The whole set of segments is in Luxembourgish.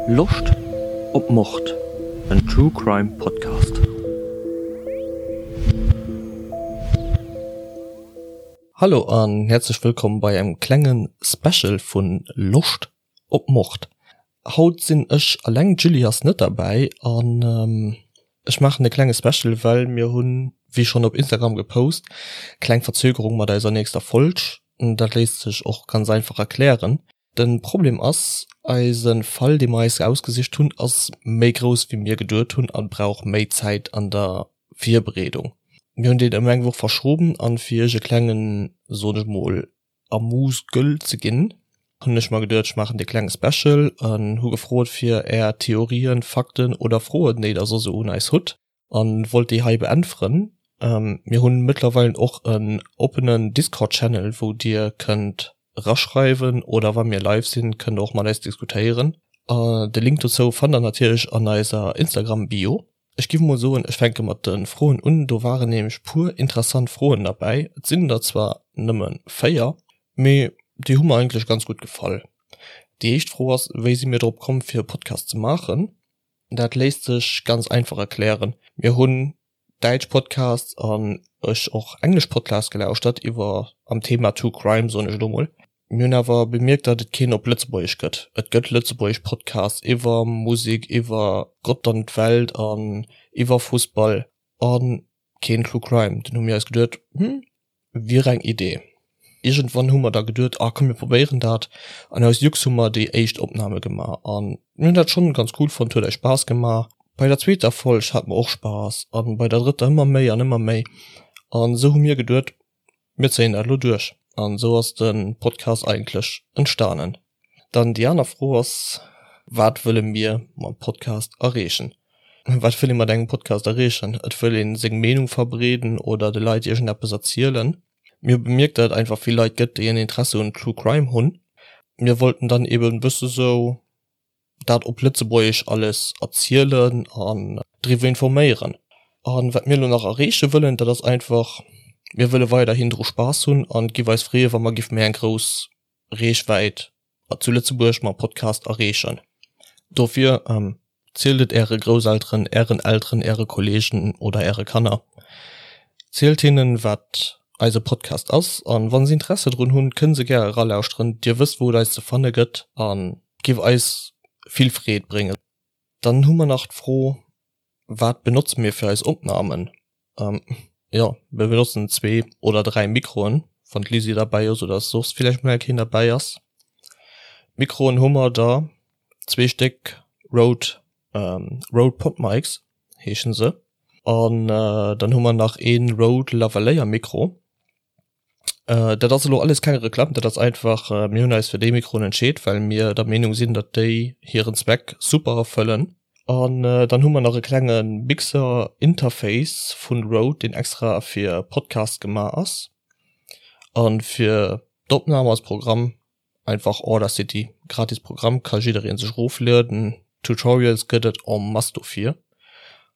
Loscht op Mord? En True Crime Podcast. Hallo an häerzlech wëllkomm bei engem klenge Special vun Loscht op Mord. Haut sinn ech alleng, d'Julie ass net derbäi an ech maachen e klenge Special, well mir hunn, wéi schonn op Instagram gepost, kleng Verzögerung mat eiser nächster Folg. Dat léisst sech och ganz einfach erklären. De Problem ass, eise Fall dee mer eis ausgesicht hunn, ass méi grouss wéi mir geduet hunn a brauch méi Zäit an der Virbereedung. Mir hunn deen ëm eng Woch verschoben an fir iech e klengen, soen ech mol, Amuse-gueule ze ginn, hunn ech mer geduet, ech maachen dee klenge Special an hu gefrot fir är Theorien, Fakten oder Froen déi der soss esou un eis hutt. An wollt déi hei beäntweren. Mir hunn mëttlerweilen och en oppenen Discord Channel wou dir kënnt eraschreiwen oder wa mir live sinn kënnt der och mat eis diskutéieren. De Link dozou fannt der natierlech an eiser Instagram Bio. Ech giff mol soen ech fänke mat de Froen un, do waren nämlech puer interessant Froen derbäi. Et sinn der zwar nëmme 4, mee déi hu mer eigentlech ganz gutt gefall. Déi éischt Fro ass, wéi si mir drop komm fir e Podcast ze maachen? Dat léisst sech ganz einfach erklären. Mir hunn däitsch Podcasts an ech och englesch Podcasts gelauschtert iwwer am Thema True Crime, soen ech elo mol. Mir hunn awer bemierkt, datt et keen op Lëtzebuergesch gëtt. Et gëtt lëtzebuergesch Podcasts iwwer Musek, iwwer Gott an d'Welt an iwwer Fussball a keen True Crime. Dunn hu mir eis geduet, Hm, Wier eng Idee. Iergendwann hu mer da geduet, ah komm mir probéieren dat. An aus Jux hu mer déi éischt Opname gemaach an mir hunn dat schonn ganz cool fonnt, huet eis Spaass gemaach. Bei der zweeter Folg hate mer och Spaass an bei der drëtter ëmmer méi an ëmmer méi. An esou hu mir geduet, mir zéien dat elo duerch. An esou ass de Podcast eigentlech entstanen. Dann déi aner Fro ass, Wat wëlle mir mam Podcast erreechen? Wat wëll ee mat engem Podcast erreechen? Et wëll ee seng Meenung verbreeden oder de Leit iergendeppes erzielen. Mir hu bemierkt, datt et einfach vill Leit gëtt, déi en Interesse un True Crime hunn. Mir wollten dann eben e bësse sou dat op Lëtzebuergesch alles erzielen an driwwer informéieren. A wat mir elo nach erreeche wëllen, dat ass einfach, mir wëlle weiderhin dru Spaass hunn an et giff eis freeë wa mer giff méi eng grouss Reechwäit zu Lëtzebuerg mam Podcast erreechen. Dofir zielt et äre Grousselteren, ären Elteren, äre Kolleegen oder äre Kanner. Zielt hinnen, wat eise Podcast ass an wa se Interesse drun hunn, kënne se gär eralauschteren. Dir wësst, wou et eis ze fanne gëtt a giff eis vill Freed bréngen. Dann hu mer nach d'Fro, Wat benotze mir fir eis Opnamen? Jo, mir benotzen zwee oder 3 Mikroen, wann d'Lisi derbäi ass oder soss villäicht mol eng Kéier derbäi ass. Mikroen hu mer der zwee Stéck Rode, Rode PodMics heeschen se. An dann hu mer nach ee Rode Lavalier Mikro. Dat ass elo alles keng Reklamm, dat ass einfach, mir hunn eis fir déi Mikroen entscheet, well mir der Meenung sinn, datt déi hiren Zweck super erfëllen. An dann hu mer nach e klenge Mixer-Interface vun Rode, deen extra fir Podcasts gemaach ass. A fir d'Opnam als Programm Einfach Audacity, gratis Programm, ka jiddereen sech eroflueden. Tutorials gëtt et en masse dofir.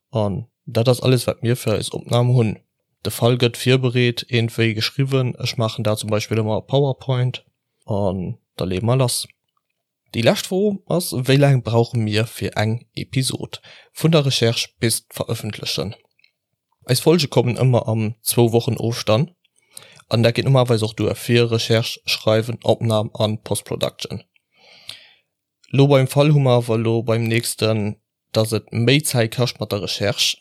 An dat ass alles wat mir fir eis Opnahm hunn. De Fall gëtt virbereet, iergendwéi geschriwwen, ech maachen dat zum Beispill ëmmer a Powerpoint, an da leeë mer lass. Déi lescht Fro ass, wéi laang brauche mir fir eng Episod, vun der Recherche bis d'Verëffentlechen? Eis Folge kommen ëmmer am zwou Wochen Ofstand an dat geet normalerweis och duer fir Recherche, Schreiwen, Opnahm an Postproduction. Lo beim Fall hu mer awer lo beim nächsten, dass et méi Zäit kascht mat der Recherche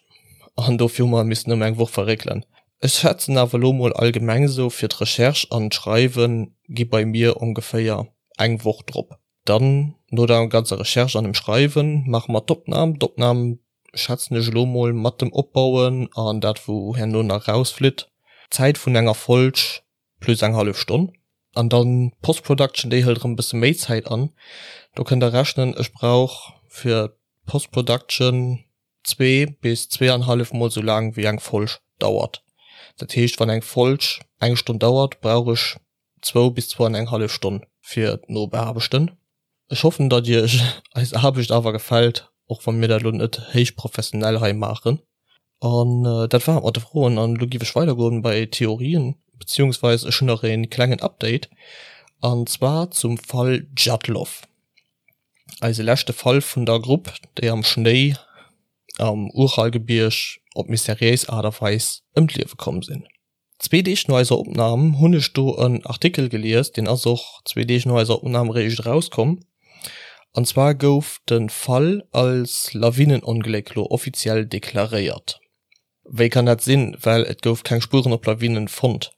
an dofir hu mer missen ëm eng Woch verréckelen. Ech schätzen awer lo mol allgemeng sou fir d'Recherche an d'Schreiwen gi bei mir ongeféier eng Woch drop. Dann no der ganzer Recherche an dem Schreiwen maache mer d'Opnahm. D'Opnahm schätzen ech elo mol mat dem Opbauen an dat wou herno nach rausflitt, Zäit vun enger Folg plus eng hallef Stonn. An dann d'Post-Production, déi hëlt erëm e bësse méi Zäit an. Do kënnt der rechnen, ech brauch fir d'Post-Production zwee bis zweeanhallef mol sou laang wéi eng Folg dauert. Dat heescht wann eng Folg eng Stonn dauert, brauch ech zwou bis zwou an eng hallef Stonn fir d'Nobeaarbechten. Ech hoffen datt iech eis Aarbecht awer gefält, och wa mir dat elo net héich professionell hei maachen. An dat war et mat de Froen an elo giff ech weidergoen bei Theorien, beziehungsweis ech hunn nach een klengen Update an zwar zum Fall Djatlov. Eise leschte Fall vun der Grupp, déi am Schnéi am Uralgebierg op mysteriéis Aart a Weis ëm d'Liewe komm sinn. Zwee Deeg no eiser Opnam hunn ech do en Artikel gelies, deen ass och zwee Deeg no eiser Opnam eréischt erauskomm. An zwar gouf de Fall als Lawinenongléck lo offiziell deklaréiert. Wéi kann dat sinn, well et gouf keng Spueren op Lawinen fonnt?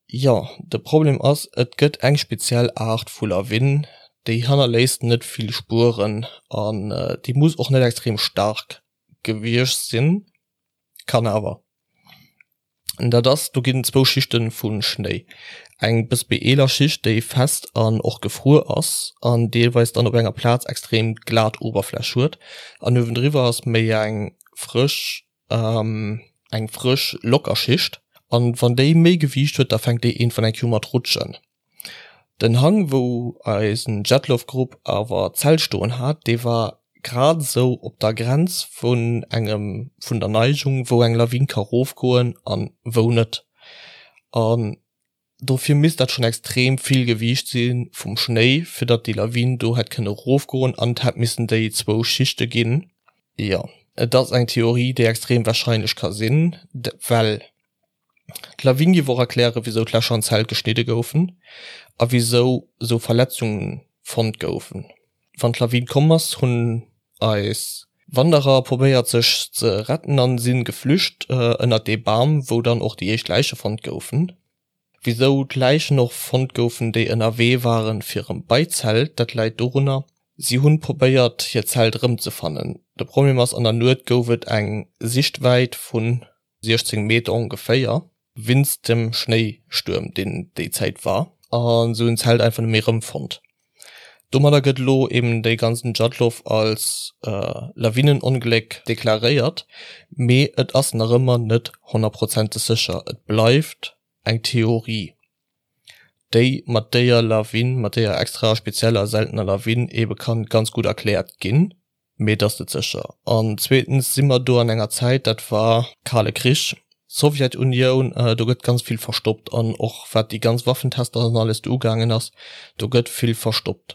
Jo, de Problem ass, et gëtt eng speziell Aart vu Lawin, déi hannerléisst net vill Spueren an déi muss och net extrem staark gewiescht sinn, kann awer. Dat ass, do ginn zwou Schichte vu Schnéi, eng bëss méi eeler Schicht, déi fest an och gefruer ass an deelweis dann op enger Plaz extrem glat Oberfläch huet, an uewendriwwer ass méi eng frësch, eng frësch locker Schicht, an wann déi méi Gewiicht huet, da fänkt déi iergendwann eng Kéier u mat rutschen. Den Hang wou eisen Djatlov-Grupp awer d'Zelt stoen hat, dee war grad esou op der Grenz vun engem, vun der Neigung wou eng Lawin ka rofgoen an wou net. An dofir misst dat schonn extrem vill Gewiicht si vum Schnéi fir datt déi Lawin do hätt kënne rofgoen an et hätt missen déi zwou Schichte ginn. Jo, et ass eng Theorie déi extrem warscheinlech ka sinn, well D'Lawin géif och erklären, wisou d'Lächer an d'Zelt geschnidde goufen a wisou esou Verletzunge fonnt goufen. Wann d'Lawin komm ass, hunn eis Wanderer probéiert sech ze retten an si geflücht ënnert dee Bam, wou dann och déi éischt Läiche fonnt goufen. Wisou d'Läichen och fonnt goufen, déi ënnerwee waren fir erëm bei d'Zelt, dat läit dorunner, si hunn probéiert hiert Zelt erëmzefannen. De Problem ass, an der Nuet gouf et eng Sichtwäit vun 16 Meter ongeféier, winst dem Schnéistuerm deen déi Zäit war, a se hunn d'Zelt einfach net méi erëmfonnt. Domadder gëtt elo eben dee ganzen Djatlov als Lawinenongléck deklaréiert, mee et ass nach ëmmer net honnertprozenteg sécher, et bleift eng Theorie, déi mat déier Lawin, mat déier extra spezieller seltener Lawin ebe kann ganz gutt erkläert ginn. Mee et ass net sécher. An zweetens si mer do an enger Zäit, dat war Kale Krich, Sowjetunioun, do gëtt ganz vill verstoppt an och wat déi ganz Waffentester an alles do ugaangen ass, do gëtt vill verstoppt.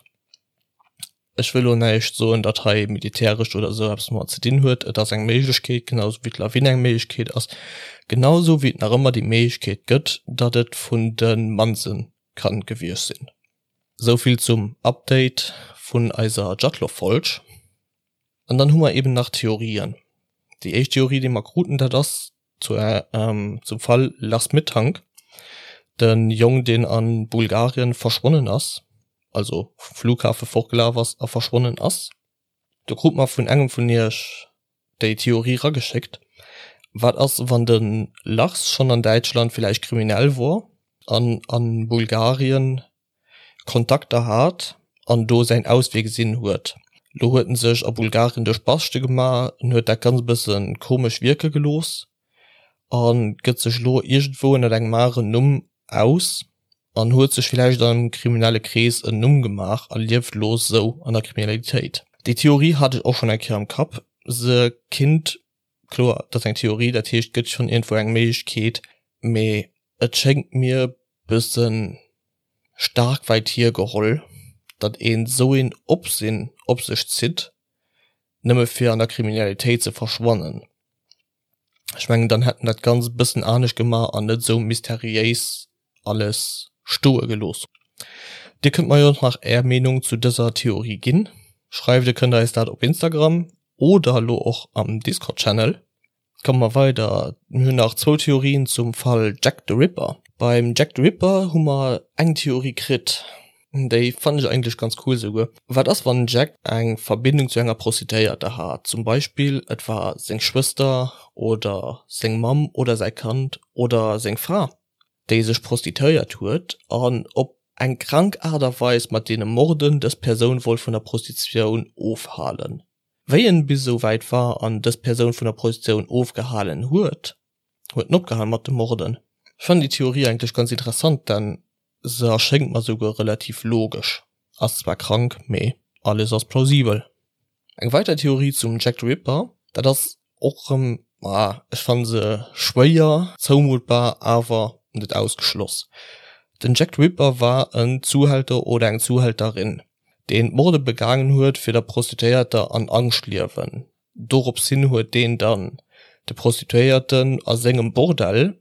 Ech wëll elo näischt soen, datt hei militäresch oder esou eppes domat ze dinn huet. Et ass eng Méiglechkeet, genau esou wéi d'Lawin eng Méiglechkeet ass, genau esou wéi et nach ëmmer déi Méiglechkeet gëtt, datt et vun de Manse kann gewiescht sinn. Souvill zum Update vun eiser Djatlov-Folg. An dann hu mer eben nach Theorien. Déi éischt Theorie, déi mer kruten, dat ass zu, zum Fall Lars Mittank, de Jong, deen a Bulgarien verschwonnen ass, also vum Flughafe fortgelaf ass a verschwonnen ass. Do krut mer vun engem vun iech déi Theorie rageschéckt, Wat ass wann de Lars schonn an Däitschland villäicht kriminell wor an a Bulgarien Kontakter hat an do säin Auswee gesinn huet? Lo huet en sech a Bulgarien duerch Baschte gemaach, en huet dat ganz e bësse komesch wierke gelooss a gëtt sech lo iergendwou ënnert engem aneren Numm aus an huet sech villäicht an engem kriminelle Krees en Numm gemaach a lieft lo sou an der Kriminalitéit. Déi Theorie hat ech och schonn eng Kéier am Kapp. Se kinnt, kloer, et ass eng Theorie, dat heescht et gëtt schonn iergendwou eng Méiglechkeet, mee et schéngt mir bëssen staark wäit hiergeholl, datt een sou een Opsinn op sech zitt, nëmme fir an der Kriminalitéit ze verschwannen. Ech mengen dann hätt en dat Ganzt e bëssen anescht gemaach an net esou mysteriéis alles stoe gelooss. Dir kënnt mer jo och nach är Meenung zu dëser Theorie ginn. Schreift e kënnt eis dat op Instagram oder elo och am Discord Channel. Komme mer weider, mir hunn nach zwou Theorien zum Fall Jack the Ripper. Beim Jack the Ripper hu mer eng Theorie kritt, Déi fannen ech eigentlech ganz cool souguer. Wat ass wann den Jack eng Verbindung zu enger Prostituéierter hat? Zum Beispill et war seng Schwëster oder seng Mamm oder säi Kand oder seng Fra déi sech prostituéiert huet an op eng krank Aart a Weis mat deene Morden dës Persoun wollt vun der Prostitutioun ofhalen. Wéi en bis esou wäit war an dës Persoun vun der Prostitutioun ofgehalen huet, huet en opgehal mat de Morden. Ech fannen déi Theorie eigentlech ganz interessant, denn Se erschéngt mer souguer relativ logesch. Ass zwar krank, mee alles ass plausibel. Eng weider Theorie zum Jack the Ripper, dat ass och rëm, ah, ech fanne se schwéier zoumuttbar, awer net ausgeschloss. Den Jack the Ripper war en Zuhälter oder eng Zuhälterin. deen d'Morde begaangen huet fir der Prostituéierter an Angscht liewen. Dorops hin huet deen dann de Prostituéierten a sengem Bordell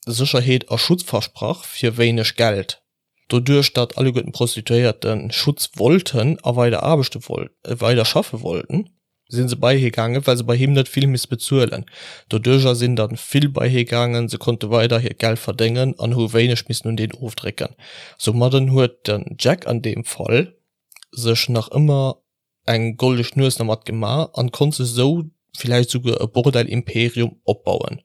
Sécherheet a Schutz versprach fir wéineg Geld. Doduerch datt alleguerten d'Prostituéierte Schutz wollten a weider aarbechte weider schaffe wollten, si se bei hie gaangen, well se bei him net vill misste bezuelen. Doduercher sinn dann vill bei hie gaangen, se konnte weider hiert Geld verdéngen an hu wéineg missen un deen ofdrécken. Soumadden huet den Jack an deem Fall sech nach ëmmer eng goldeg Nues dermat gemaach an konnt sech sou villäicht souguer e Bordell-Imperium opbauen.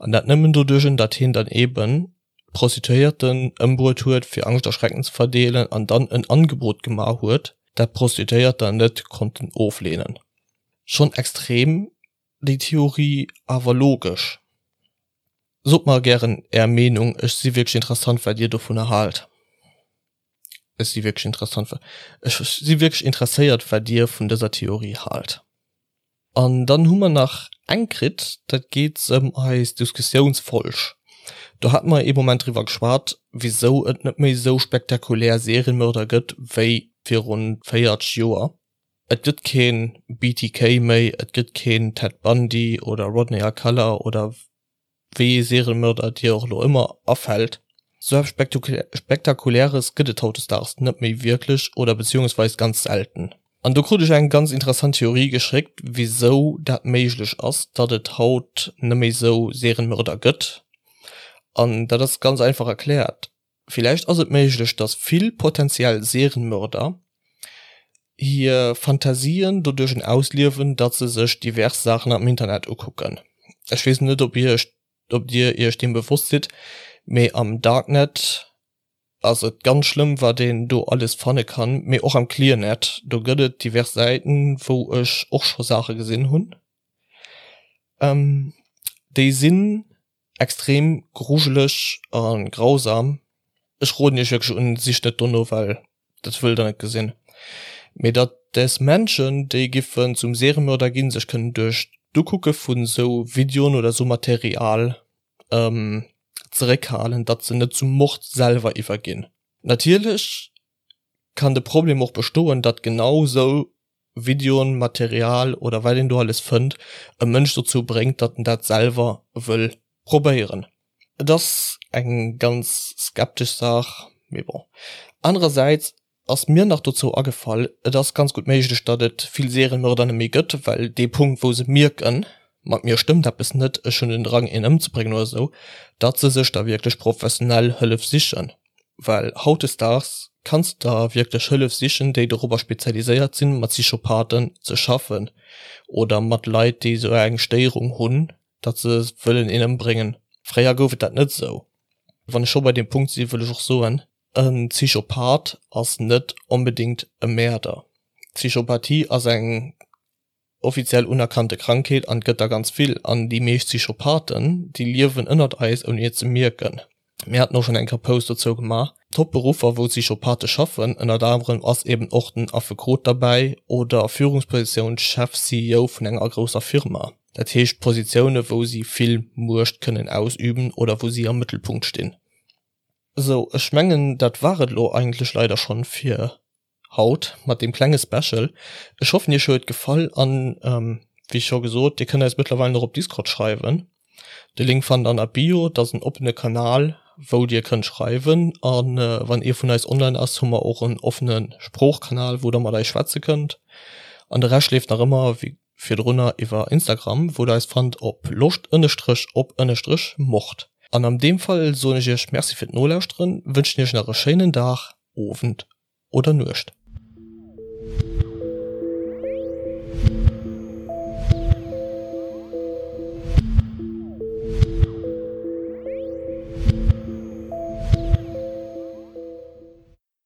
An dat nëmmen doduerch, datt hien dann eben d'Prostituéierten ëmbruet huet fir Angscht a Schrecken ze verdeelen an dann en Angebot gemaach huet, dat d'Prostituéierter net konnten ofleenen. Schonn extrem déi Theorie, awer logesch. Sot mer gären är Meenung, ech si wierklech interessant wat dir dovunner haalt. Ech si wierklech interessant ech si wierklech interesséiert wat dir vun dëser Theorie haalt. An dann hu mer nach eng kritt, dat geet ëm eis Diskussiounsfolg. Do hate mer ee Moment driwwer geschwat, wisou et net méi esou spektakulär Serienmörder gëtt wéi virun 40 Joer. Et gëtt kee BTK méi, et gëtt keen Ted Bundy oder Rodney Alcala oder wéi ee Serienmörder dir och elo ëmmer afält. Sou eppes Spektakuläres gëtt et hautdesdaags net méi wierklech oder beziehungsweis ganz selten. An do krut ech eng ganz interessant Theorie geschéckt, wisou dat méiglech ass, datt et haut net méi sou Serienmörder gëtt. An dat ass ganz einfach erkläert, Villäicht ass et méiglech, datt vill potentiell Serienmörder hir Fantasien doduerch ausliewen, datt se sech divers Saachen am Internet ukucken. Ech weess net, ob iech ob dir iech deem bewosst sidd, mee am Darknet ass et ganz schlëmm wat een do alles fanne kann, mee och am Clearnet, do gëtt et divers Säiten, wou ech och scho Saache gesinn hunn, déi sinn extrem grujeleg a grausam. Ech roden iech wierklech un, sicht net dono, well dat wëllt der net gesinn. Mee datt des Menschen, déi giffen zum Seriemörder ginn, sech kënnen duerch d'Ukucke vun esou Videoen oder esou Material zeréckhalen, datt se net zum Mord selwer iwwerginn. Natierlech kann de Problem och bestoen, datt genau esou Videoen, Material oder wat een do alles fënnt, e Mënsch dozou bréngt, datt en dat selwer wëll probéieren. Et ass eng ganz skeptesch Saach, mee bon. Anerersäits ass mir nach dozou agefall, et ass ganz gutt méiglech, datt et vill Serienmörder net méi gëtt, well dee Punkt wou se mierken, mat mir stëmmt eppes net, ech hunn den Drang een ëmzebréngen oder esou, datt se sech da wierklech professionell Hëllef sichen. Well hautdesdaags kanns de der wierklech Hëllef sichen, déi dorobber spezialiséiert sinn, mat Psychopathen ze schaffen oder mat Leit, déi esou eng Stéierung hunn, datt se wëllen een ëmbréngen. Fréier gouf et dat net esou. Wann ech scho bei deem Punkt sinn, wëll ech och soen, En Psychopath ass net onbedéngt e Mäerder. Psychopathie ass eng offiziell unerkannte Krankheet an et gëtt der ganz vill an déi meescht Psychopathen déi liewen ënnert eis ouni et ze mierken. Mir haten och schonn eng Kéier Post dozou gemaach. Top Beruffer wou Psychopathe schaffen, ënnert anerem ass eben och den Affekot derbäi oder Führungspositioun, Chef, CEO vun enger grousser Firma. Dat heescht Positioune wou si vill Muecht kënnen ausüben oder wou si am Mëttelpunkt stinn. Sou, ech mengen dat war et elo eigentlech leider schonn fir haut mat deem klenge Special. Ech hoffen iech huet gefall an wéi scho gesot, dir kënnt eis mëttlerweil och op Discord schreiwen. De Link fannt der an der Bio, dat ass en oppene Kanal wou dir kënnt schreiwen an wann ee vun eis online ass hu mer och en offene Sproochkanal wou der mat eis schwätze kënnt. An de Rescht leeft nach ëmmer wéi virdrunner iwwer Instagram wou der eis fannt op loscht ënnestrech op ënnestrech mord. An am deem Fall soen ech iech Merci fir d'Nolauschteren, wënschen iech nach e schéinen Dag, Owend oder Nuecht.